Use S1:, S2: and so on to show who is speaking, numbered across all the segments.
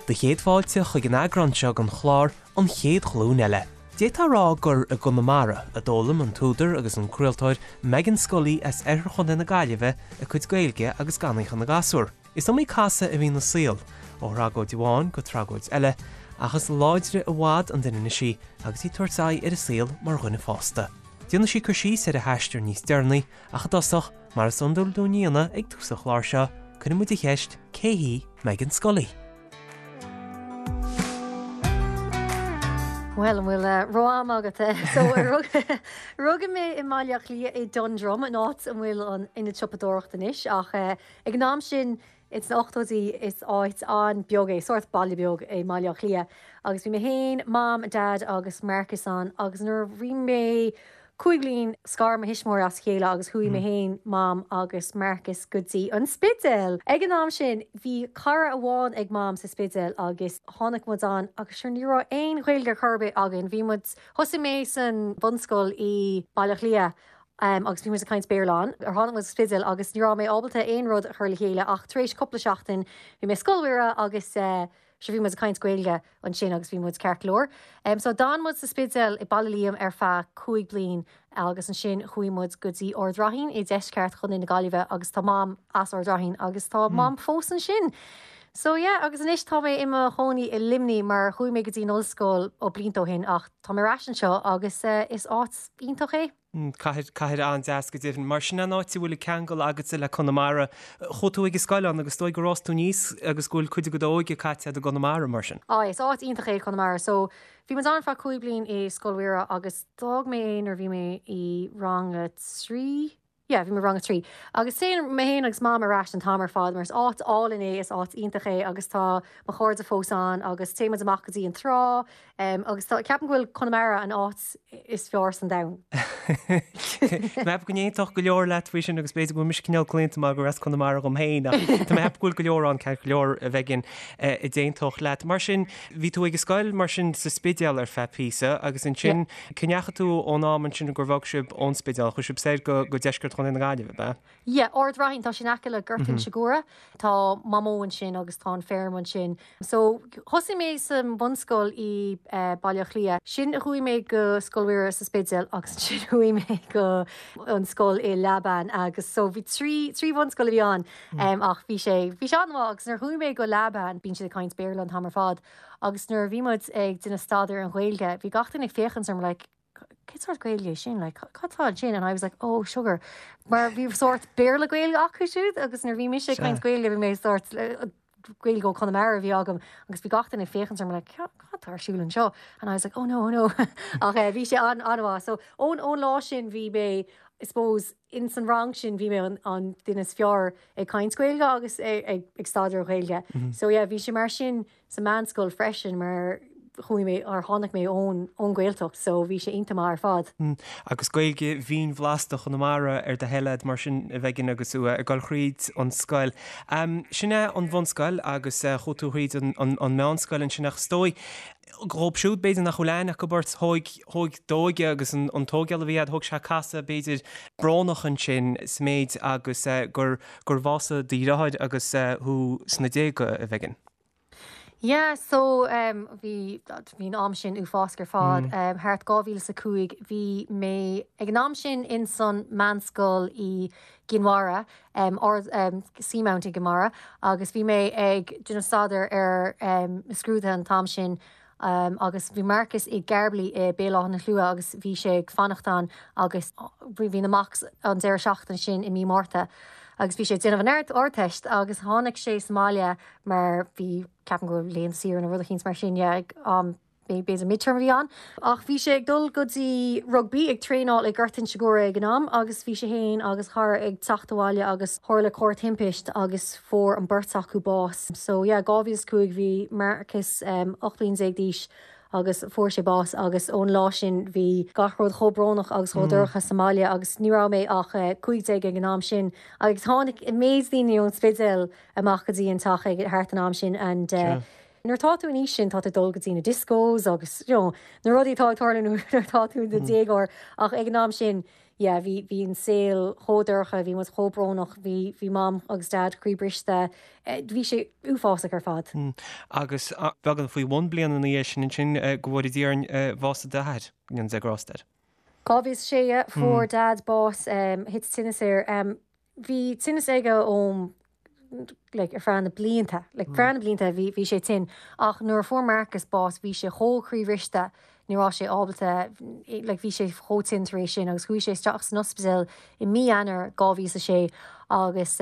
S1: Do chéad fáilte chuig an eagrán seo den chlár An Chéad Ghlúin Eile. D'fhéadfá a rá gur i gConamara a d'fhoghlaim an t-údar agus an craoltóir Meghan Scully as oirthear Chontae na Gaillimhe a cuid Gaeilge agus gan í chun na gasúr. Is iomaí casadh a bhí ina saol, ó thragóid amháin go tragóid eile, ach is láidre i bhfad an duine anois í agus í ag tabhairt aghaidh ar an saol mar dhuine fásta. Déanfaidh sí cur síos ar a haistear níos deireanaí, ach i dtosach, mar is iondúil dúinn a dhéanamh ag tús an chláir seo, cuireann muid an cheist, cé hí Meghan Scully?
S2: Bhuel, an bhfuil ró-am agat? So, rugadh mé i mBaile Átha Cliath i Dundrum, an áit a bhfuil an ionad siopadóireachta anois, ach Ag an am sin, ins na ochtóidí, is áit an-beag é, sórt baile beag é mBaile Átha Cliath. Agus bhí mé féin, Mam, Dad agus Marcus ann agus nuair a bhí mé 5 bliain, scar mo thuismitheoirí as a chéile agus chuaigh mé féin, Mam agus Marcus go dtí an Spidéal. Ag an am sin, bhí cara amháin ag Mam sa Spidéal agus tháinig muid ann agus sure ní raibh aon Ghaeilge ar chor ar bith againn. Bhí muid, thosaigh mé san bhunscoil i Baile Átha Cliath agus bhí muid ag caint Béarla ann. Tháinig muid go Spidéal agus ní raibh mé ábalta aon rud a chur le chéile ach tar éis cúpla seachtain bhí mé i Scoil Mhuire agus sure bhí muid ag caint Gaeilge ansin agus bhí muid ceart go leor. So d'fhan muid sa Spidéal i Baile Liam ar feadh 5 bliain agus ansin chuaigh muid go dtí Ard Raithin i deisceart Chontae na Gaillimhe agus tá Mam as Ard Raithin agus tá Mam fós ansin. So yeah agus anois tá mé i mo chónaí i Luimnigh mar chuaigh mé go dtí an ollscoil ó blianta ó shin ach tá mé ar ais anseo agus is áit iontach é.
S1: Cathair, cathair an-deas go deimhin. Mar sin an áit a bhfuil an ceangal agatsa le Conamara. Chuaigh tú ag an scoil ann agus is dóigh gur fhás tú aníos agus go bhfuil cuid de d'óige caite agat i gConamara mar sin.
S2: Á, is áit iontach é Conamara. So, bhí muid ann ar feadh 5 bliain i Scoil Mhuire agus d'fhág mé é nuair a bhí mé i rang a 3. Yeah, bhí mé i rang a 3. Agus téann mé féin agus Mam ar ais an t-am ar fad mar is áit álainn é, is áit iontach é agus tá mo chairde fós ann agus téann muid amach go dtí an trá agus tá, ceapaim go bhfuil Conamara an áit is fearr san domhan.
S1: Tá mé ag ceapadh go n-aontódh go leor leat faoi sin agus b'fhéidir go bhfuil mise cineál claonta mar gur as Conamara dhom féin ach tá mé ag ceapadh go bhfuil go leor ann ceart go leor a Mhegan a d'aontódh leat. Mar sin, bhí tú ag an scoil mar sin sa Spidéal ar feadh píosa agus ansin cá ndeachaigh tú ón am ansin gur bhog sibh ón Spidéal, chuaigh sibh soir go deisceart Chontae na Gaillimhe, ab ea?
S2: Yeah, Ard Raithin, tá sé in aice le Gort Inse Guaire. Tá Mamó ansin agus tá an feirm ansin. So, thosaigh mé sa mbunscoil i Baile Átha Cliath. Sin chuaigh mé go Scoil Mhuire sa Spidéal agus ansin chuaigh mé go an scoil i Leamhban agus so bhí trí, trí bhunscoil a bhí ann ach bhí sé, bhí sé an-mhaith agus nuair a chuaigh mé go Leamhban bíonn siad ag caint Béarla an t-am ar fad agus nuair a bhí muid ag déanamh staidéar an Ghaeilge bhí gach duine ag féachaint orm like, cén sórt Gaeilge é sin? Like, cad tá ansin? And I was like, oh, sugar. Mar bhí sórt Béarla Gaeilge acu siúd agus nuair bhí mise ag caint Gaeilge bhí mé sórt Gaeilge ó Conamara a bhí agam agus bhí gach duine ag féachaint orm like, cad tá ar siúl anseo? And I was like, oh no, oh no. Ach eh, bhí sé an an-mhaith. So ón ón lá sin bhí mé, I suppose, in san rang sin bhí mé an, an duine is fearr ag caint Gaeilge agus ag, ag, ag staidéar Gaeilge. So yeah, bhí sé mar sin sa meánscoil freisin mar chuaigh mé or tháinig mé ón ón Ghaeltacht so bhí sé iontach maith ar fad.
S1: Agus Gaeilge mhín bhlasta Chonamara ar do thoil a'd mar sin a Mhegan agus tú ag dul thríd an scoil. Sin é an bhunscoil agus chuaigh tú thríd an an meánscoil ansin ach is dóigh dhóibh siúd b'fhéidir nach bhfuil aithne acu ort, thóig thóig d'óige agus an an tóigeáil a bhí a'd, thóg sé casadh b'fhéidir brónach ansin sa méid agus gur gur bhásaigh do dheartháir agus thú sna déaga, a Mhegan.
S2: Yeah, so um, bhí bhí an am sin uafásach ar fad. Um, thart 2005 bhí mé ag an am sin in san meánscoil i gCinn Mhara, um, or, um, Seamount i gCinn Mhara, agus bhí mé ag déanamh staidéar ar um, na scrúduithe an t-am sin um, agus bhí Marcus i gCaerloyne i Béal Átha na Slua agus bhí sé ag fanacht ann agus bhí bhí na mocks an deireadh seachtaine sin i mí Márta agus bhí sé ag déanamh an ard Ardteist agus tháinig sé sa mbaile mar bhí, ceapaim go raibh laethanta saoire nó rud eicínt mar sin, yeah, ag am, b'fhéidir midterm a bhí ann. Ach bhí sé ag dul go dtí rugbaí, ag traenáil i Gort Inse Guaire ag an am agus bhí sé fhéin agus a chara ag teacht abhaile agus tharla corr-thimpist agus fuair an beirt acu bás. So yeah, 2005 bhí Marcus 18 bliain d'aois agus fuair sé bás agus ón lá sin bhí gach rud chomh brónach agus chomh dorcha sa mbaile agus ní raibh mé ach 15 ag an am sin agus tháinig an méid daoine ón Spidéal amach go dtí an teach ag thart an am sin and. Nuair atá tú an aois sin tá tú ag dul go dtí na discos agus you know na rudaí atá ag tarlú nuair atá tú i do dhéagóir ach ag an am sin yeah bhí bhí an saol chomh dorcha, bhí muid chomh brónach, bhí bhí Mam agus Dad croíbhriste, bhí sé uafásach ar fad.
S1: Agus beagán faoi bhun bliana ina dhiaidh sin ansin, go bhfóire Dia orainn, bhásaigh d'athair, go ndéana Dia grásta air.
S2: 2006, yeah, fuair Dad bás, thit tinneas air. Bhí tinneas aige óm like ar feadh na blianta, like feadh na blianta bhí bhí sé tinn ach nuair a fuair Marcus bás bhí sé chomh croíbhriste ní raibh sé ábalta like bhí sé chomh tinn tar éis sin agus chuaigh sé isteach san ospidéal i mí Eanáir 2006 agus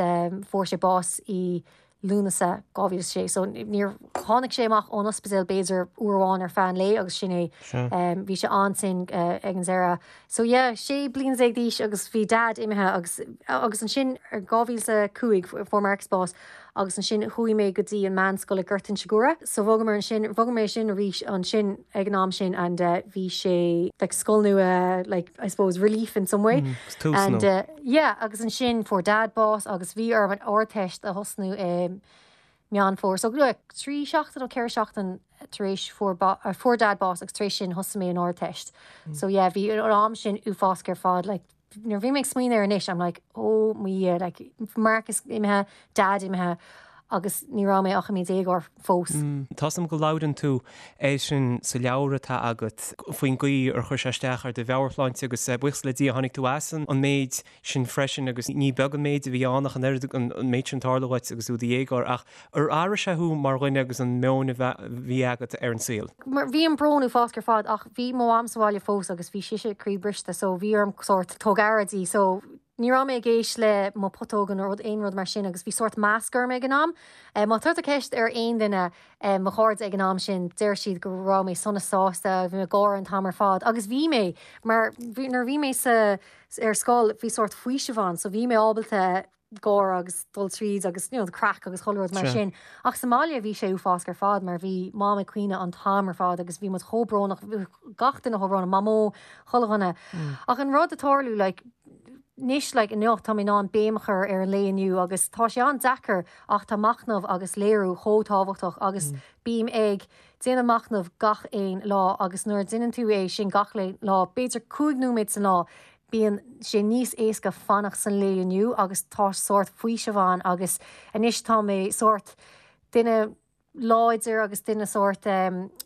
S2: fuair sé bás i Lúnasa 2006. So níor tháinig sé amach ón ospidéal b'fhéidir uair amháin ar feadh an lae agus sin é. Bhí sé an-tinn ag an deireadh. So yeah, 16 bliain d'aois agus bhí Dad imithe agus agus ansin 2005 fuair Marcus bás agus ansin chuaigh mé go dtí an meánscoil i Gort Inse Guaire. So bhogamar ansin, bhog mé sin arís ansin ag an am sin and bhí sé like scoil nua like I suppose relief in some way.
S1: Tús
S2: And nua. Yeah agus ansin fuair Dad bás agus bhí orm an Ardteist a thosnú i Meán Fómhair. So 3 seachtain nó 4 seachtain tar éis fuair fuair Dad bás agus tar éis sin thosaigh mé an Ardteist. So yeah bhí an am sin uafásach ar fad like nuair a bhí mé ag smaoineamh air anois I'm like oh mo Dhia like Marcus imithe, Dad imithe agus ní raibh mé ach i mo dhéagóir fós.
S1: Tá 's agam go labhrann tú air sin sa leabhar atá agat, faoin gcaoi ar chuir sé isteach ar do mheabhairshláinte agus buíochas le Dia tháinig tú as an méid sin freisin agus ní beag an méid a bhí ann ach an oiread an méid sin tarlú dhuit agus tú i do dhéagóir ach ar athraigh sé thú mar dhuine agus an meon a bhí agat ar an saol?
S2: Mar bhí an brón uafásach ar fad ach bhí mo mham sa bhaile fós agus bhí sise croíbhriste so bhí orm sórt tóg aire di so ní raibh mé ag éist le mo putóga nó rud aon rud mar sin agus bhí sórt mask orm ag an am. Má chuir tú ceist ar aon duine mo chairde ag an am sin deir siad go raibh mé sona sásta, bhí mé ag gáire an t-am ar fad agus bhí mé mar nuair a bhí mé sa ar scoil bhí sórt faoiseamh ann so bhí mé ábalta gáire agus dul tríd agus you know the craic agus chuile rud mar sin. Ach sa mbaile bhí sé uafásach ar fad mar bhí Mam ag caoineadh an t-am ar fad agus bhí muid chomh brónach, gach duine chomh brónach, Mamó, chuile dhuine. Ach an rud a tharlú like anois like inniu tá mé in ann béim a chur ar an lae inniu agus tá sé an-deacair ach tá machnamh agus léiriú chomh tábhachtach agus bím ag déanamh machnamh gach aon lá agus nuair a déanann tú é sin gach lá, b'fhéidir 5 nóiméad san lá, bíonn sé níos éasca fanacht san lae inniu agus tá sórt faoiseamh ann agus anois tá mé sórt duine láidir agus duine sórt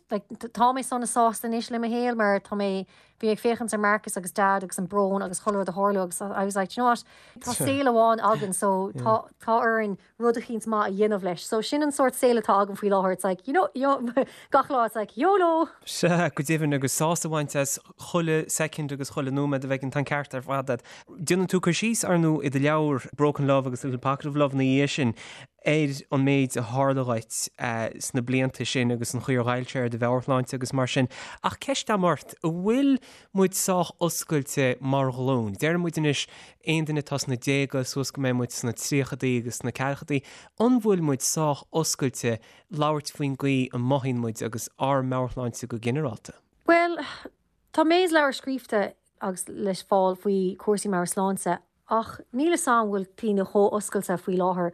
S2: like tá mé sona sásta anois le mo shaol mar tá mé bhí mé ag féachaint ar Marcus agus Dad agus an brón agus chuile rud a tharlú agus I was like do you know what tá saol amháin againn so tá tá orainn rud eicínt maith a dhéanamh leis. So sin an sórt saol atá agam faoi láthair, it's like, you know, you know, gach lá it's like, YOLO!
S1: Sea, go deimhin, agus sásamh a bhaint as chuile soicind agus chuile nóiméad a bheidh an ceart ar fad agat. Déanann tú cur síos, ar ndóigh, i do leabhar Broken Love agus Little Pocket of Love ina dhiaidh sin ar an méid a tharla dhuit sna blianta sin agus an chaoi ar ghoill sé ar do mheabhairshláinte agus mar sin. Ach ceist agam ort, an bhfuil muid sách oscailte mar ghlúin? Deireann muid anois aon duine atá sna déaga suas go mbeidh muid sna tríochadaí agus sna ceathrachaidí, an bhfuil muid sách oscailte labhairt faoin gcaoi a mothaíonn muid agus ár meabhairshláinte go ginearálta?
S2: Bhuel, tá méid leabhar scríofa agus le fáil faoi chúrsaí meabhairshláinte ach níl 'fhios a'm bhfuil daoine chomh oscailte faoi láthair.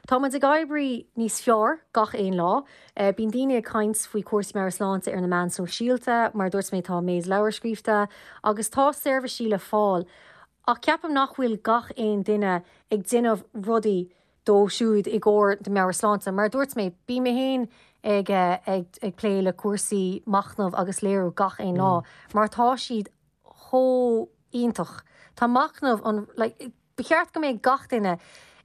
S2: Tá muid ag éirí níos fearr gach aon lá. Bíonn daoine ag caint faoi chúrsaí meabhairshláinte ar na meáin sóisialta, mar a dúirt mé tá méid leabhar scríofa agus tá seirbhísí le fáil. Ach ceapaim nach bhfuil gach aon duine ag déanamh rudaí dóibh siúd i gcomhair do meabhairshláinte. Mar a dúirt mé, bím mé féin ag ag plé le cúrsaí machnamh agus léiriú gach aon lá mar tá siad chomh iontach. Tá machnamh an like ba cheart go mbeadh gach duine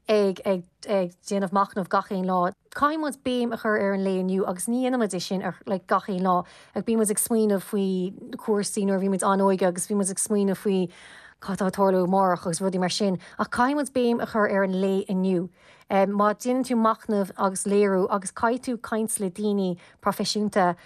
S2: ag ag ag déanamh machnamh gach aon lá. Caithfidh muid béim a chur ar an lae inniu agus ní dhéanann muid é sin ar like gach aon lá. Like bíonn muid ag smaoineamh faoi cúrsaí nuair a bhí muid an-óige agus bhí muid ag smaoineamh faoi cad atá ag tarlú amárach agus rudaí mar sin. Ach caithfidh muid béim a chur ar an lae inniu. Má déanann tú machnamh agus léiriú agus caithfidh tú caint le daoine proifisiúnta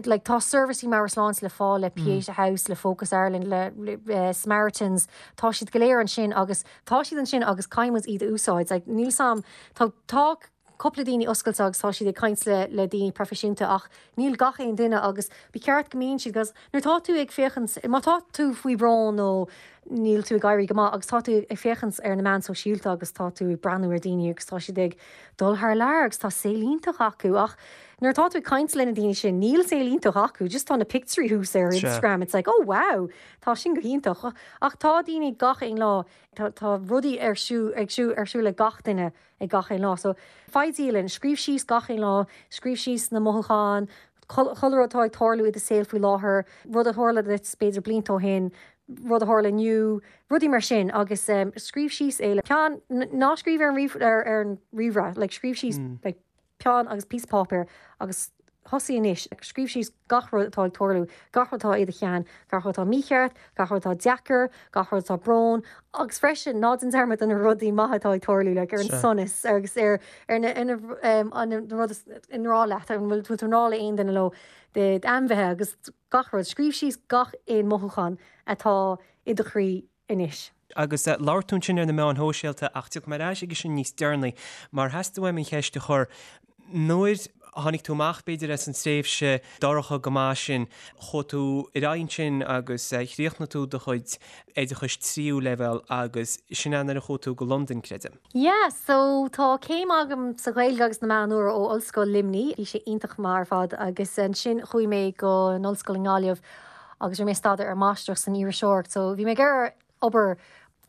S2: like tá seirbhísí meabhairshláinte le fáil le Pieta House, le Focus Ireland, le, le Samaritans, tá siad go léir ansin agus tá siad ansin agus caithfidh muid iad a úsáid. Like níl 's a'm, tá, tá cúpla daoine oscailte agus tá siad ag caint le, le daoine proifisiúnta ach níl gach aon duine agus ba cheart go mbíonn siad 'cause nuair tá tú ag féachaint, má tá tú faoi bhrón nó níl tú ag éirí go maith agus tá tú ag féachaint ar na meáin sóisialta agus tá tú ag breathnú ar daoine agus tá siad ag dul thar lear agus tá saol iontach acu ach. Nuair atá tú ag caint le na daoine sin, níl saol iontach acu, just tá na pictiúirí thuas ar Instagram, it's like, oh wow, tá sin go hiontach. Ach tá daoine gach aon lá, tá, tá rudaí ar siúl, ag siúl, ar siúl ag gach duine ag gach aon lá. So, faigh dialann, scríobh síos gach aon lá, scríobh síos na mothúcháin, chuile rud atá ag tarlú i do saol faoi láthair, rud a tharla duit b'fhéidir blianta ó shin, rud a tharla inniu, rudaí mar sin agus scríobh síos é le peann, ná scríobh ar an ríomh, ar, ar an ríomhaire, like scríobh síos like, peann agus píosa páipéir agus thosaigh anois ag scríobh síos gach rud atá ag tarlú, gach rud atá i do cheann, gach rud atá mícheart, gach rud atá deacair, gach rud atá brón agus freisin ná déan dearmad de na rudaí maithe atá ag tarlú like ar an sonas agus ar ar na ar na an na rud is i ngrá leat, an bhfuil tú i ngrá le aon duine leo, d'ainmhithe agus gach rud. Scríobh síos gach aon mothúchán atá i do chroí anois.
S1: Agus labhair tú ansin ar na meáin shóisialta ach tiocfaidh mé ar ais aige sin níos deireanaí mar theastaigh uaim an cheist a chur, nuair a tháinig tú amach b'fhéidir as an tréimhse dorcha go maith sin, chuaigh tú ar aghaidh ansin agus chríochnaigh tú do chuid oideachais tríú leibhéal agus sin é nuair a chuaigh tú go Londain, creidim.
S2: Yeah, so tá céim agam sa Ghaeilge agus na Meáin Úra ó Ollscoil Luimnigh, bhí sé iontach maith ar fad agus ansin chuaigh mé go an ollscoil i nGaillimh agus rinne mé staidéar ar máistreacht san iriseoireacht so bhí mé ag iarraidh obair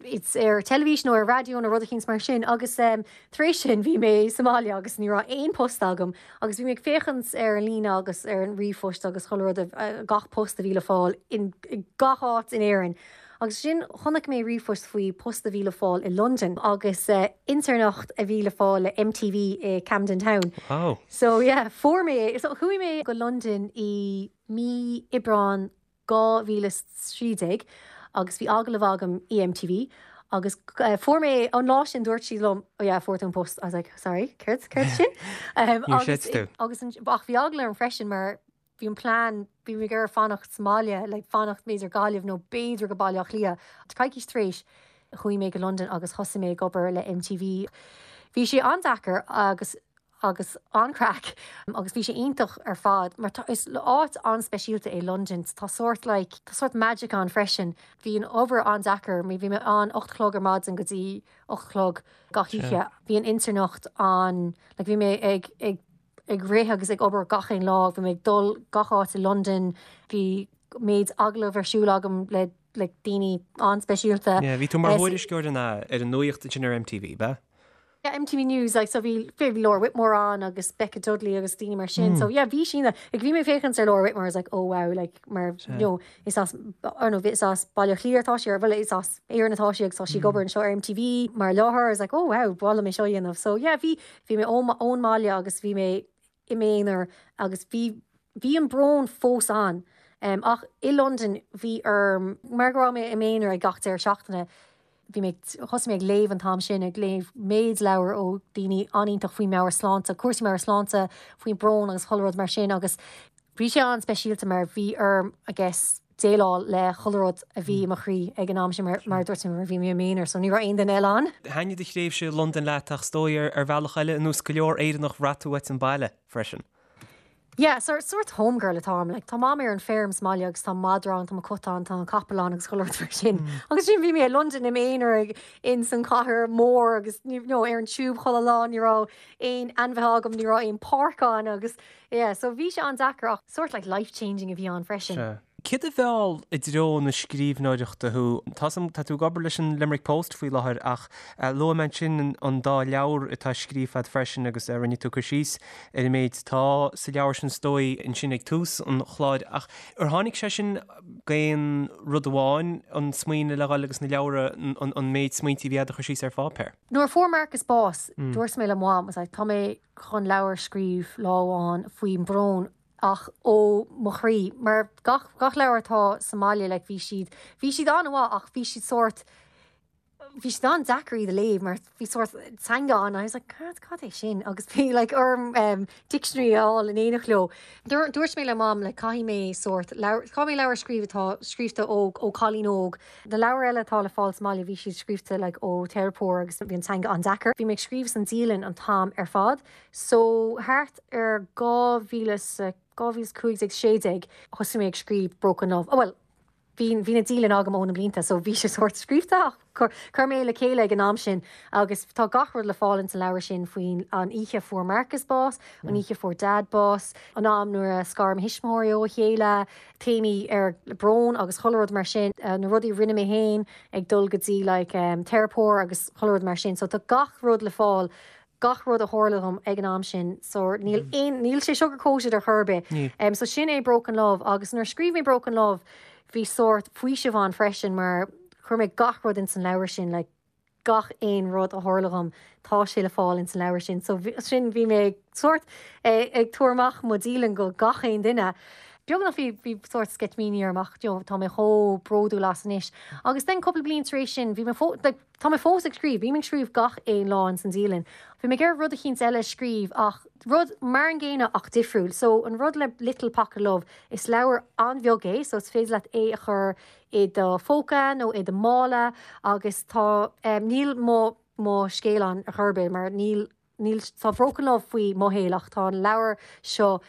S2: it's ar teilifís nó ar raidió nó rud eicínt mar sin agus um, tar éis sin bhí mé sa mbaile agus ní raibh aon post agam agus bhí mé ag féachaint ar an líne agus ar an ríomhphost agus chuile rud uh, gach post a bhí le fáil in, in gach áit in Éirinn. Agus sin chonaic mé ríomhphost faoi post a bhí le fáil i Londain agus uh, intéirneacht a bhí le fáil le MTV i Camden Town.
S1: Wow.
S2: So yeah, fuair mé é. So chuaigh mé go Londain i mí Aibreán 2013 agus bhí agallamh agam i MTV agus fuair mé an lá sin dúirt siad liom oh yeah fuair tú an post I was like sorry céard céard sin
S1: um, agus,
S2: agus an, ach bhí eagla orm freisin mar bhí an plean bhí mé ag iarraidh fanacht sa mbaile like fanacht b'fhéidir Gaillimh nó b'fhéidir go Baile Átha Cliath coicís tar éis chuaigh mé go Londain agus thosaigh mé ag obair le MTV bhí sé an-deacair agus agus an-craic agus bhí sé iontach ar fad mar tá is áit an-speisialta é Londain tá sórt like tá sórt magic ann freisin. Bhí an obair an-deacair bhí mé ann 8 a chlog ar maidin go dtí 8 a chlog gach oíche. Bhí an intéirneacht an like bhí mé ag ag ag rith agus ag obair gach aon lá bhí mé ag dul gach áit i Londain bhí méid agallamh ar siúl agam le like daoine an-speisialta.
S1: Yeah, bhí tú mar thuairisceoir an ar an nuaíocht ansin ar MTV, b'ea?
S2: Yeah, MTV News, like, so bhí, bhí Laura Whitmore ann agus Becca Dudley agus daoine mar sin. So yeah, bhí sin, like, bhí mé ag féachaint ar Laura Whitmore, I was like, oh wow, like, mar, you know, is as, or no, is as Baile Átha Cliath atá sí, or bhuel, is as Éirinn atá sí agus tá sí ag obair anseo ar MTV mar láithreoir, I was like, oh wow, ba mhaith liom é seo a dhéanamh. So yeah, bhí, bhí mé ón, ón mbaile agus bhí mé i m'aonar agus bhí, bhí an brón fós ann. Um, ach i Londain bhí orm, mar go raibh mé i m'aonar ag gach deireadh seachtaine, Bhí mé, thosaigh mé ag léamh an t-am sin, ag léamh méid leabhar ó daoine an-iontach faoi meabhairshláinte, cúrsaí meabhairshláinte, faoin brón agus chuile rud mar sin agus bhí sé an-speisialta mar bhí orm, I guess, déileáil le chuile rud a bhí i mo chroí ag an am sin mar, mar a dúirt mé, mar bhí mé i m'aonar so ní raibh aon duine eile ann.
S1: Thaitnigh do thréimhse i Londain leat ach is dóigh ar bhealach eile, ar nós go leor Éireannach, bhraith tú uait an baile freisin.
S2: Yeah, sort, sort home girl atáim, like, tá Mam ar an feirm sa mbaile agus tá madra ann, tá mo cat ann, tá an capall ann agus chuile rud mar sin. Agus sin bhí mé i Londain im aonar ag, in san chathair mór agus you know, ar an tube chuile lá, ní raibh aon ainmhithe agam, ní raibh aon páirc ann agus yeah, so bhí sé an-deacair ach sort like life changing a bhí ann freisin.
S1: Sea. Céard a mheall i dtreo na scríbhneoireachta thú? Tá 's agam, tá tú ag obair leis an Limerick Post faoi láthair ach luaigh mé ansin an dá leabhar atá scríofa agat freisin agus rinne tú cur síos ar an méid atá sa leabhar sin is dóigh ansin ag tús an chláir ach ar tháinig sé sin d'aon rud amháin, an smaoineamh le dhul agus na leabhra, an méid smaointe a bhí agat a chur síos ar pháipéar?
S2: Nuair a fuair Marcus bás, dúirt mé le Mom, I was like, tá mé chun leabhar a scríobh lá amháin faoin brón ach ó mo chroí, mar gach, gach leabhar atá sa mbaile, like, bhí siad, bhí siad an-mhaith ach bhí siad sórt, bhí siad an-deacair iad a léamh mar bhí sórt teanga ann, I was like, cad, cad é sin? Agus bhí like orm um, dictionary a fháil in éineacht leo. Dúirt, dúirt mé le Mam, like, caithfidh mé sórt leabhar, caithfidh mé leabhar a scríobh atá scríofa ó, ó cailín óg. Na leabhair eile atá le fáil sa mbaile, bhí siad scríofa like ó teiripeoir agus bhí an teanga an-deacair. Bhí mé ag scríobh san dialann an t-am ar fad. So thart ar 2015, 16 thosaigh mé ag scríobh Broken Love. Oh well, bhí. Bhí bhí na dialann agam ó na blianta so bhí sé sórt scríobhta ach chuir chuir mé le chéile ag an am sin agus tá gach rud le fáil ins an leabhar sin faoin an oíche a fuair Marcus bás, an oíche a fuair Dad bás, an am nuair a scar mo thuismitheoirí ó a chéile, téamaí ar brón agus chuile rud mar sin, na rudaí a rinne mé féin ag dul go dtí like teiripeoir agus chuile rud mar sin so tá gach rud le fáil gach rud a tharla dhom ag an am sin so níl aon níl sé sugar coated ar chor ar bith. Níl. So sin é Broken Love agus nuair a scríobh mé Broken Love bhí sórt faoiseamh ann freisin mar chuir mé gach rud ins an leabhar sin like gach aon rud a tharla dhom tá sé le fáil ins an leabhar sin so sin bhí mé ag sórt ag tabhairt amach mo dialann go gach aon duine. Beagnach bhí bhí sórt sceitimíní orm ach you know tá mé chomh bródúil as anois. Agus then cúpla bliain tar éis sin bhí mé fó like Tá mé fós ag scríobh, bím ag scríobh gach aon lá ins an dialann. Bhí mé ag iarraidh rud eicínt eile a scríobh ach rud mar an gcéanna ach difriúil. So an rud le Little Pocket Love, is leabhar an-bheag é so is féidir leat é a chur i do phóca nó i do mhála agus tá, níl mo mo scéal ann ar chor ar bith mar níl Níl, tá Broken Love faoi mo shaol ach tá an leabhar seo,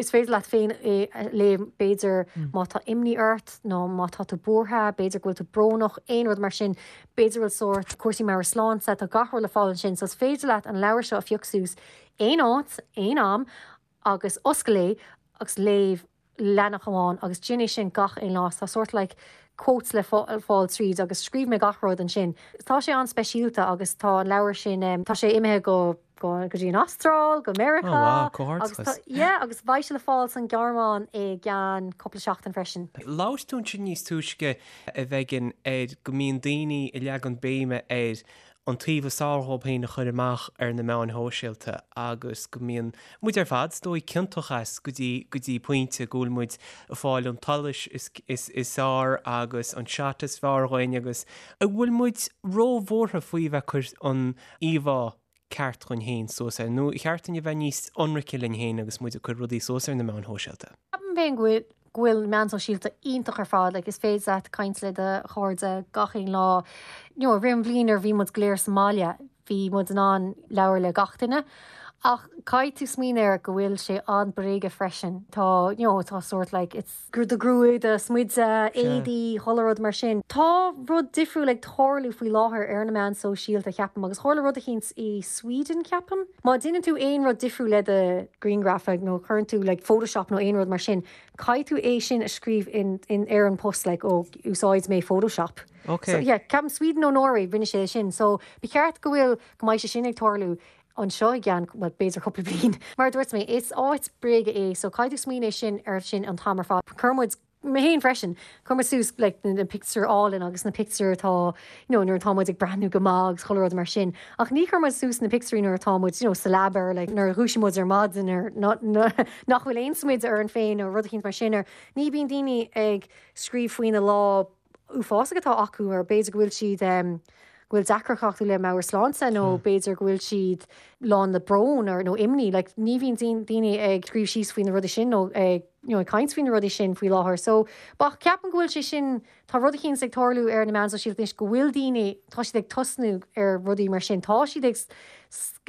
S2: is féidir leat féin é a léamh b'fhéidir má tá imní ort nó má tá tú buartha, b'fhéidir go bhfuil tú brónach, aon rud mar sin, b'fhéidir go bhfuil sórt cúrsaí meabhairshláinte, tá gach rud le fáil ansin so is féidir leat an leabhar seo a phiocadh suas aon áit, aon am agus oscail é agus léamh leathanach amháin agus déan é sin gach aon lá. Tá sórt like quotes le fáil tríd agus scríobh mé gach rud ansin. Tá sé an-speisialta agus tá an leabhar sin, tá sé imithe go go go dtí an Astráil, go Meiriceá.
S1: Oh wow, comhghairdeachas.
S2: Agus tá, yeah, agus beidh sé le fáil san Ghearmáin i gceann cúpla seachtain freisin.
S1: Labhair tú ansin níos túisce a Mhegan ar go mbíonn daoine ag leagan béime ar an taobh is fearr dhóibh féin a chur amach ar na meáin shóisialta agus go mbíonn muid ar fad, is dóigh, ciontach as go dtí, go dtí pointe, go bhfuil muid ag fáil an tsolais is, is, is fearr agus an shot is fearr dhuinn agus an bhfuil muid róbhuartha faoi bheith ag cur an íomhá ceart dhuinn féin suas air nó ar cheart dúinn a bheith níos ionraice linn féin agus muid ag cur rudaí suas ar na meáin shóisialta?
S2: Ceapaim féin go bhfuil go bhfuil na meáin sóisialta iontach ar fad, like is féidir leat caint le do chairde gach aon lá. You know, i rith an bhliain nuair a bhí muid go léir sa mbaile, bhí muid in ann labhair le gach duine. Ach caithfidh tú smaoineamh air go bhfuil sé an-bréige freisin. Tá, you know, tá sórt like, it's do ghruaig, do smideadh, éadaí, chuile rud mar sin. Tá rud difriúil ag tarlú faoi láthair ar na meáin sóisialta, ceapaim, agus tharla rud eicínt i Sweden, ceapaim. Má déanann tú aon rud difriúil le do ghrianghraf nó cuireann tú like Photoshop nó aon rud mar sin, caithfidh tú é sin a scríobh in, in, ar an post like oh úsáid mé Photoshop.
S1: Ok.
S2: So yeah, ceapaim Sweden nó Norway rinne sé sin. So ba cheart go bhfuil, go mbeidh sé sin ag tarlú anseo i gceann, well b'fhéidir cúpla bliain. Mar a dúirt mé, is áit bréige é so caithfidh tú smaoineamh sin ar sin an t-am ar fad. Cuireann muid Mé féin freisin. Cuireann muid suas like na pictiúir álainn agus na pictiúir atá you know nuair atá muid ag breathnú go maith agus chuile rud mar sin. Ach ní chuireann muid suas na pictiúirí nuair atá muid you know sa leaba or like nuair a dhúisíonn muid ar maidin or nach bhfuil aon smideadh orainn féin nó rud eicínt mar sin or ní bhíonn daoine ag scríobh faoina lá uafásach atá acu or b'fhéidir go bhfuil siad em go bhfuil deacracht acu le meabhairshláinte nó b'fhéidir go bhfuil siad lán le brón or nó imní. Like ní bhíonn daoine ag scríobh síos faoi na rudaí sin nó ag you know ag caint faoi na rudaí sin faoi láthair. So ach ceapaim go bhfuil sé sin, tá rud eicínt ag tarlú ar na meáin sóisialta anois go bhfuil daoine, tá siad ag tosnú ar rudaí mar sin. Tá siad ag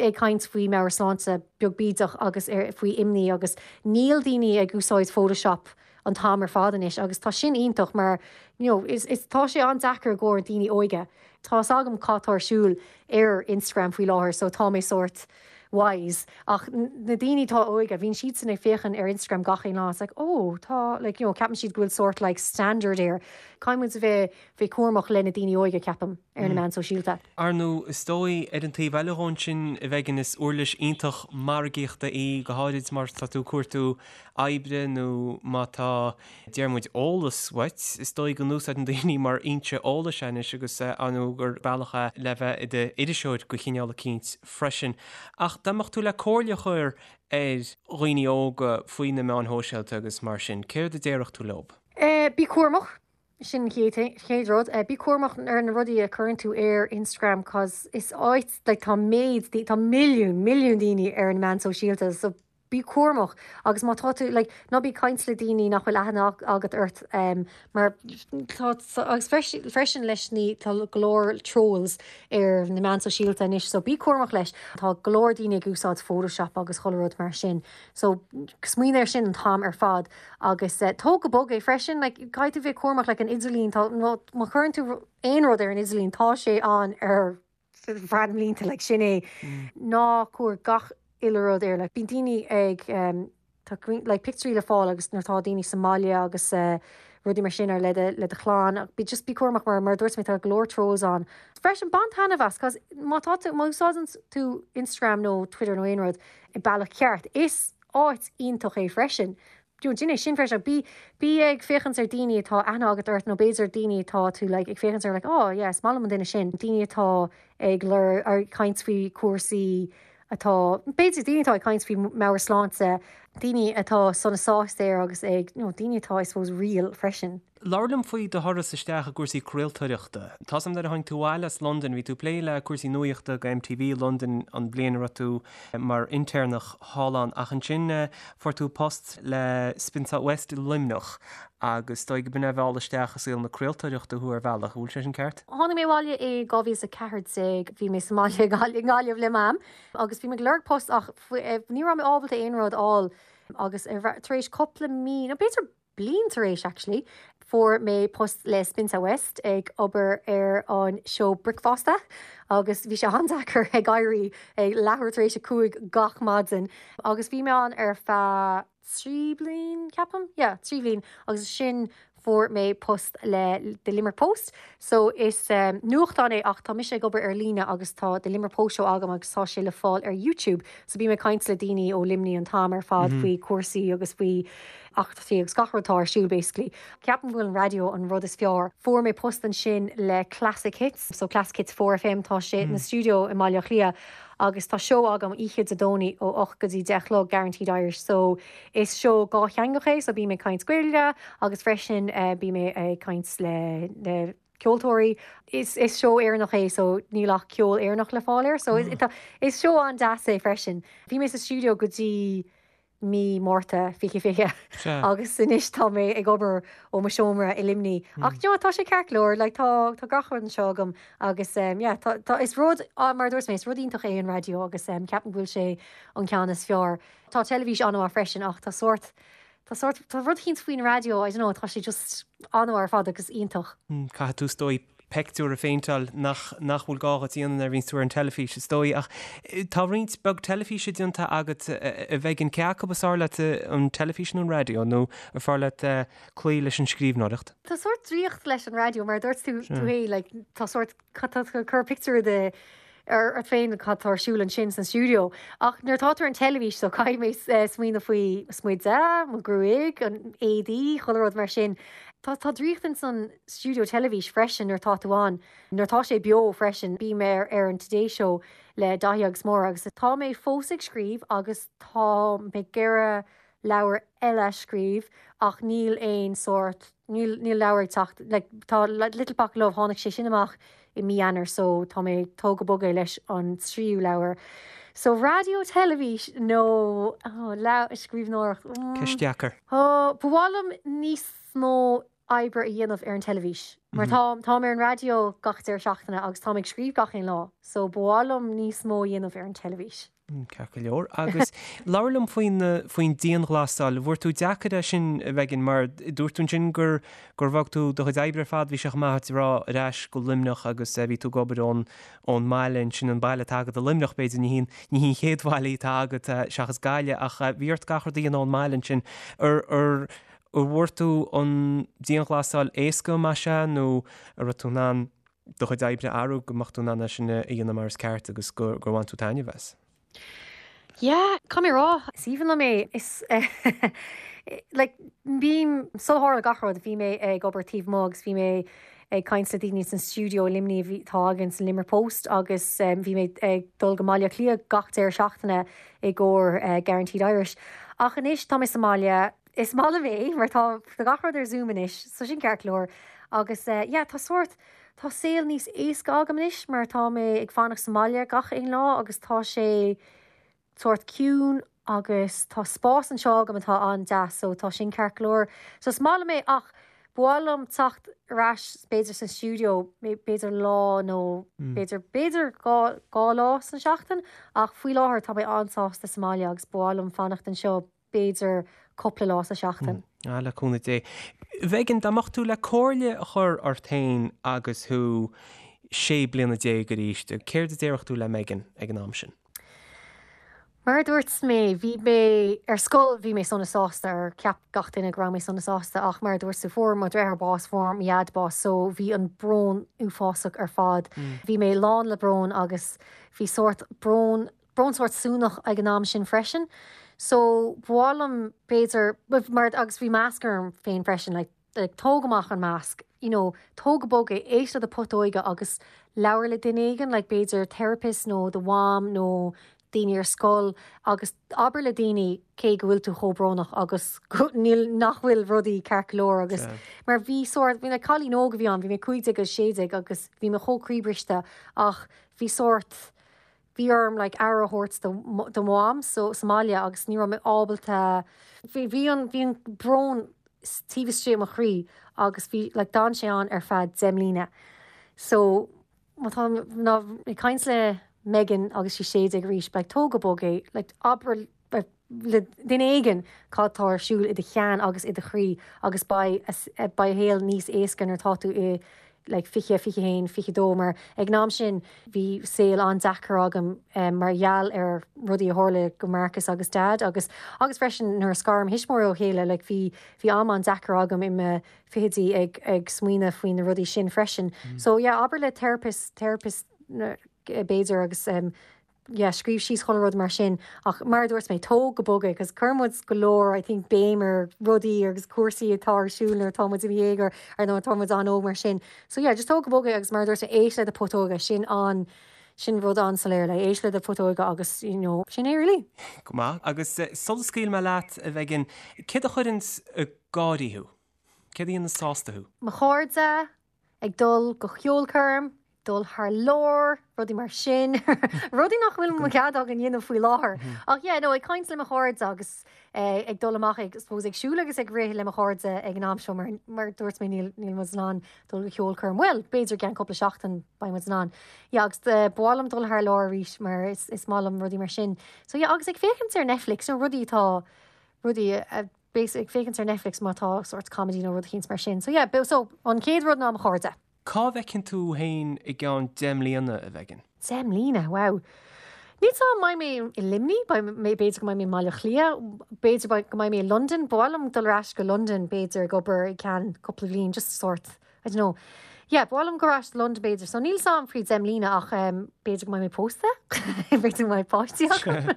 S2: ag caint faoi meabhairshláinte beag bídeach agus ar faoi imní agus níl daoine ag úsáid Photoshop an t-am ar fad anois agus tá sin iontach mar you know is is tá sé an-deacair i gcomhair daoine óige. Tá fhios agam cad tá ar siúl ar Instagram faoi láthair so tá mé sórt wise ach na daoine atá óige bíonn siadsan ag féachaint ar Instagram gach aon lá it's like oh tá like you know ceapann siad go bhfuil sórt like standard air. Caithfidh muid a bheith bheith cúramach le na daoine óige ceapaim ar na meáin sóisialta.
S1: Ar ndóigh, is dóigh, ar an taobh eile dhó ansin, a Mhegan, is uirlis iontach margaíochta í, go háirid má tá tú ag cuartú oibre nó má tá, deir muid, eolas uait, is dóigh go n-úsáideann daoine mar fhoinse eolais é anois agus ar ndóigh gur bealach é le bheith i d'iriseoir de chineál eicínt freisin. Ach dá mbeadh tú le comhairle a chur ar dhaoine óga faoi na meáin shóisialta agus mar sin, céard a déarfadh tú leob?
S2: Bí cúramach, sin an chéad rud. Bí cúramach ar na rudaí a chuireann tú ar Instagram cos is áit, like tá méid, tá milliún, milliún daoine ar na meáin sóisialta so. Bí cúramach agus má tá tú, like, ná bí ag caint le daoine nach bhfuil aithne agat ort mar tá, agus freisin leis na, tá go leor trolls ar na meáin sóisialta anois so bí cúramach leis. Tá go leor daoine ag úsáid Photoshop agus chuile rud mar sin so smaoinigh ar sin an t-am ar fad agus tóg go bog é freisin, like, caithfidh tú bheith cúramach like an idirlíon, tá, má chuireann tú aon rud ar an idirlíon tá sé ann ar feadh na mblianta, like, sin é. Ná cuir gach uile rud air, like, bíonn daoine ag, tá like pictiúirí le fáil agus nuair atá daoine sa mbaile agus rudaí mar sin ar le do le do chlann ach bí just bí cúramach mar mar a dúirt mé tá go leor trolls ann. Freisin bain taitneamh as cos má tá tú má úsáideann tú Instagram nó Twitter nó aon rud i bealach ceart is áit iontach é freisin. You know, déan é sin freisin ach bí bí ag féachaint ar daoine atá aithne agat ort nó b'fhéidir daoine atá tú like ag féachaint ar like oh yeah is maith liom an duine sin daoine atá ag lur ag caint faoi cúrsaí atá, b'fhéidir, daoine atá ag caint faoi meabhairshláinte, daoine atá sona sásta air agus ag, you know, daoine atá, I suppose, real freisin.
S1: Labhair liom faoi do thuras isteach i gcúrsaí craoltóireachta. Tá 's agam nuair a tháinig tú abhaile as Londain, bhí tú ag plé le cúrsaí nuaíochta go MTV Londain an bhliain a raibh tú mar intéirneach thall ann ach ansin fuair tú post le Spin South West i Luimneach agus is dóigh go b'in é a mheall isteach i saol na craoltóireachta thú ar bhealach, an bhfuil sé sin ceart?
S2: Tháinig mé abhaile i 2014, bhí mé sa mbaile i nGaillimh le Mam agus bhí mé ag lorg post ach ní raibh mé ábalta aon rud a fháil agus tar éis cúpla mí, nó b'fhéidir bliain tar éis actually, fuair mé post le Spin South West ag obair ar an seó bricfeasta agus bhí sé an-deacair ag éirí ag leathuair tar éis a 5 gach maidin agus bhí mé ann ar feadh 3 bliain, ceapaim? Yeah, 3 bhliain agus ansin fuair mé post le The Limerick Post. So is nuachtán é ach tá mise ag obair ar líne agus tá The Limerick Post Show agam agus tá sé le fáil ar YouTube. So bím ag caint le daoine ó Luimnigh an t-am ar fad faoi cúrsaí agus faoi eachtraí agus gach rud atá ar siúl basically. Ceapaim go bhfuil an raidió an rud is fearr. Fuair mé post ansin le Classic Hits, so Classic Hits 4FM tá sé ina stiúideo i mBaile Átha Cliath. Agus tá seó agam oíche Dé Domhnaigh ó 8 go dtí 10 a chlog, Guaranteed Irish, so is seó dhátheangach é, so bím ag caint Gaeilge agus freisin bím ag caint le le ceoltóirí. Is is seó Éireannach é so níl ach ceol Éireannach le fáil air, so is seó an-deas é freisin. Bhí mé sa stiúideo go dtí mí Márta 2020 agus anois tá mé ag obair ó mo seomra i Luimnigh. Ach you know tá sé ceart go leor, like tá tá gach rud anseo agam agus um, yeah, tá, tá, is rud, ah, mar a dúirt mé, is rud iontach é an raidió agus um, ceapaim go bhfuil sé an ceann is fearr. Tá teilifís an-mhaith freisin ach tá sórt, tá sórt, tá rud eicínt faoin raidió, I don't know, tá sé just an-mhaith ar fad agus iontach.
S1: Caithfidh tú is dóigh peictiúr a phéinteáil nach nach bhfuil gá dhuit a dhéanamh nuair a bhíonns tú ar an teilifís, is dóigh. Ach tá roinnt beag teilifíse déanta agat, a Mhegan, cé acu is fearr leat, an teilifís nó an raidió, nó ar fearr leat cloí leis an scríbhneoireacht?
S2: Tá sórt draíocht leis an raidió, mar a dúirt tú tú féin, like, tá sórt, tá tú ag cur pictiúr de ort féin cad tá ar siúl ansin san stiúideo. Ach nuair atá tú ar an teilifís, so caithfidh mé smaoineamh faoi mo smideadh, mo ghruaig, an éadaí, chuile rud mar sin. Tá tá draíocht ins an stiúideo teilifís freisin nuair atá tú ann. Nuair atá sé beo freisin, bím ar ar an Today Show le Daithí agus Máire agus tá mé fós ag scríobh agus tá mé ag iarraidh leabhar eile a scríobh ach níl aon sórt, níl, níl leabhar ag teacht, like tá Little Pocket Love, tháinig sé sin amach i mí Eanáir so tá mé ag tóg go bog é leis an tríú leabhar. So raidió, teilifís nó oh, leabhar, scríbhneoireacht,
S1: mm. Ceist dheacair.
S2: Oh, ba mhaith liom níos mó oibre a dhéanamh ar an teilifís mar tá, táim ar an raidió gach deireadh seachtaine agus táim ag scríobh gach aon lá so ba mhaith liom níos mó a dhéanamh ar an teilifís.
S1: Ceart go leor. Agus labhair liom faoin, faoin dianghlasáil. Bhfuair tú deacair é sin, a Mhegan, mar dúirt tú ansin gur, gur bhog tú do chuid oibre ar fad, bhí sé chomh maith duit a rá, ar ais go Luimneach agus bhí tú ag obair ón, ón mbaile ansin, an baile atá agat i Luimneach b'fhéidir, ní hí an, ní hí an chéad bhaile atá agat seachas Gaillimh ach bhí ort gach rud a dhéanamh ón mbaile ansin. Ar, ar, ar bhfuair tú an dianghlasáil éasca, más ea, nó an raibh tú in ann do chuid oibre a athrú go mbeadh tú in ann é sin a dhéanamh mar is ceart agus gur bhain tú taitneamh as.
S2: Yeah, caithfidh mé a rá, is aoibhinn liom é. Is like bím, sular tharla gach rud, bhí mé ag obair taobh amuigh agus bhí mé ag caint le daoine san stiúideo i Luimnigh a bhí, atá againn san Limerick Post agus bhí mé ag dul go mBaile Átha Cliath gach deireadh seachtaine i gcomhair Guaranteed Irish. Ach anois tá mé sa mbaile, Is maith liom é mar tá gach rud ar Zoom anois, so sin ceart go leor. Agus yeah, tá sórt, tá saol níos éasca agam anois mar tá mé ag fanacht sa mbaile gach aon lá agus tá sé sórt ciúin. Agus tá spás anseo agam atá an-deas so tá sin ceart go leor. So is maith liom é ach ba mhaith liom teacht ar ais b'fhéidir san stiúideo b'fhéidir lá nó b'fhéidir b'fhéidir 2 lá san seachtain ach faoi láthair tá mé an-sásta sa mbaile agus ba mhaith liom fanacht anseo b'fhéidir cúpla lá sa seachtain.
S1: Ah, le cúnamh Dé. Mhegan, dá mbeadh tú le comhairle a chur ort féin agus thú 16 bliana arís, céard a déarfadh tú le Megan ag an am sin?
S2: Mar a dúirt mé, bhí mé ar scoil, bhí mé sona sásta, or cheap gach duine go raibh mé sona sásta, ach mar a dúirt tú, fuair mo dheartháir bás, fuair mo dhaid bás, so bhí an brón uafásach ar fad. Bhí mé lán le brón agus bhí sórt brón, brón sórt suanach ag an am sin freisin. So ba mhaith liom b'fhéidir, mar, agus bhí masc orm féin freisin, like, like tóg amach an masc, you know, tóg go bog é, éist le do putóige agus labhair le duine éigin, like b'fhéidir therapist nó do mham nó daoine ar scoil agus abair le daoine cé go bhfuil tú chomh brónach agus go, níl, nach bhfuil rudaí ceart go leor agus mar bhí sórt, bhí like cailín óg a bhí ann, bhí mé 15 agus 16 agus bhí mé chomh croíbhriste ach bhí sórt, bhí orm like aire a thabhairt do do mham so sa mbaile agus ní raibh mé ábalta bhí bhí an bhí an brón taobh istigh i mo chroí agus bhí like d'fhan sé ann ar feadh 10 mbliana so má tá ná ag caint le Megan agus sí 16 arís like tóg go bog é like abair le duine éigin cad tá ar siúl i do cheann agus i do chroí agus beidh beidh an saol níos éasca nuair atá tú i like 20, 21, 22 mar ag an am sin bhí saol an-deacair agam mar gheall ar rudaí a tharla go Marcus agus Dad agus agus freisin nuair a scar mo thuismitheoirí ó chéile like bhí bhí am an-deacair agam i mo fichidí ag ag smaoineamh faoi na rudaí sin freisin. So yeah abair le therapist therapist b'fhéidir agus yeah, scríobh síos chuile rud mar sin ach mar a dúirt mé, tóg go bog é 'cause cuireann muid go leor I think béim ar rudaí agus cúrsaí atá ar siúl nuair atá muid i mo dhéagóir ar nuair atá muid an-óg mar sin. So yeah, just tóg go bog é agus mar a dúirt mé, éist le do putóga, sin an, sin rud an-soiléir, like éist le do putóga agus you know, sin é really.
S1: Go maith. Agus sula scaoilfidh mé leat, a Mhegan, céard a chuireanns ag gáirí thú? Céard a dhéanann sásta thú?
S2: Mo chairde, ag dul go ceolchoirm, dul thar lear, rudaí mar sin, rudaí nach bhfuil mo chead againn dhéanamh faoi láthair. Ach yeah, no, ag caint le mo chairde agus eh, ag dul amach ag, suppose, ag siúl agus ag rith le mo chairde ag an am seo mar, mar dúirt mé níl, níl muid in ann dul go ceolchoirm. Bhuel, b'fhéidir i gceann cúpla seachtain beidh muid in ann. Yeah, agus eh, ba mhaith liom dul thar lear arís mar is, is maith liom rudaí mar sin. So yeah, agus ag féachaint ar Netflix, nó rudaí atá, rudaí a, B'fhéidir ag féachaint ar Netflix má tá sórt comedy nó rud eicínt mar sin. So yeah, so an chéad rud ná mo chairde.
S1: Cá bhfeiceann tú féin i gceann 10 mbliana, a Mhegan?
S2: 10 mbliana, wow. Níl 's a'm, mbeidh mé i Luimnigh, beidh mé, b'fhéidir go mbeidh mé i mBaile Átha Cliath, b'fhéidir go mbeidh mé i Londain, ba mhaith liom dul ar ais go Londain b'fhéidir ag obair i gceann cúpla bhliain, just sórt I don't know. Yeah, ba mhaith liom dul ar ais go Londain b'fhéidir. So níl 's a'm faoi 10 mbliana ach um, b'fhéidir go mbeidh mé pósta, b'fhéidir go mbeidh páistí agam.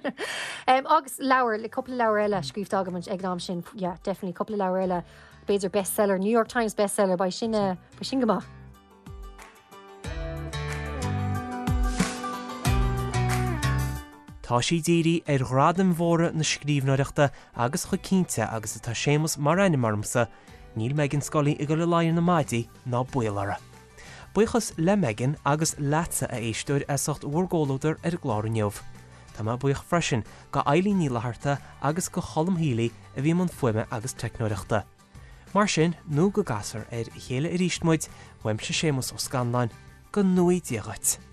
S2: um, agus leabhar, le cúpla leabhar eile scríofa agam ag an am sin, yeah, definitely cúpla leabhar eile, b'fhéidir bestseller, New York Times bestseller, beidh sin, uh, beidh sin go maith.
S1: Tá sí dírithe ar ghradaim mhóra na scríbhneoireachta agus chomh cinnte agus atá Séamus mar ainm ormsa, Níl Megan Scully ag dul i laghad ar na maidí ná baol uirthi. Buíochas le Megan agus leatsa a éisteoir as ucht bhur gcomhluadar ar an gclár inniu. Tá mé buíoch freisin go Eileen Ní Fhlatharta agus go Cholm Healy a bhí i mbun fuaime agus teicneoireachta. Mar sin, nó go gcasfar ar a chéile arís muid, uaimse Séamus Ó Scanláin, go ngnóthaí Dia dhuit.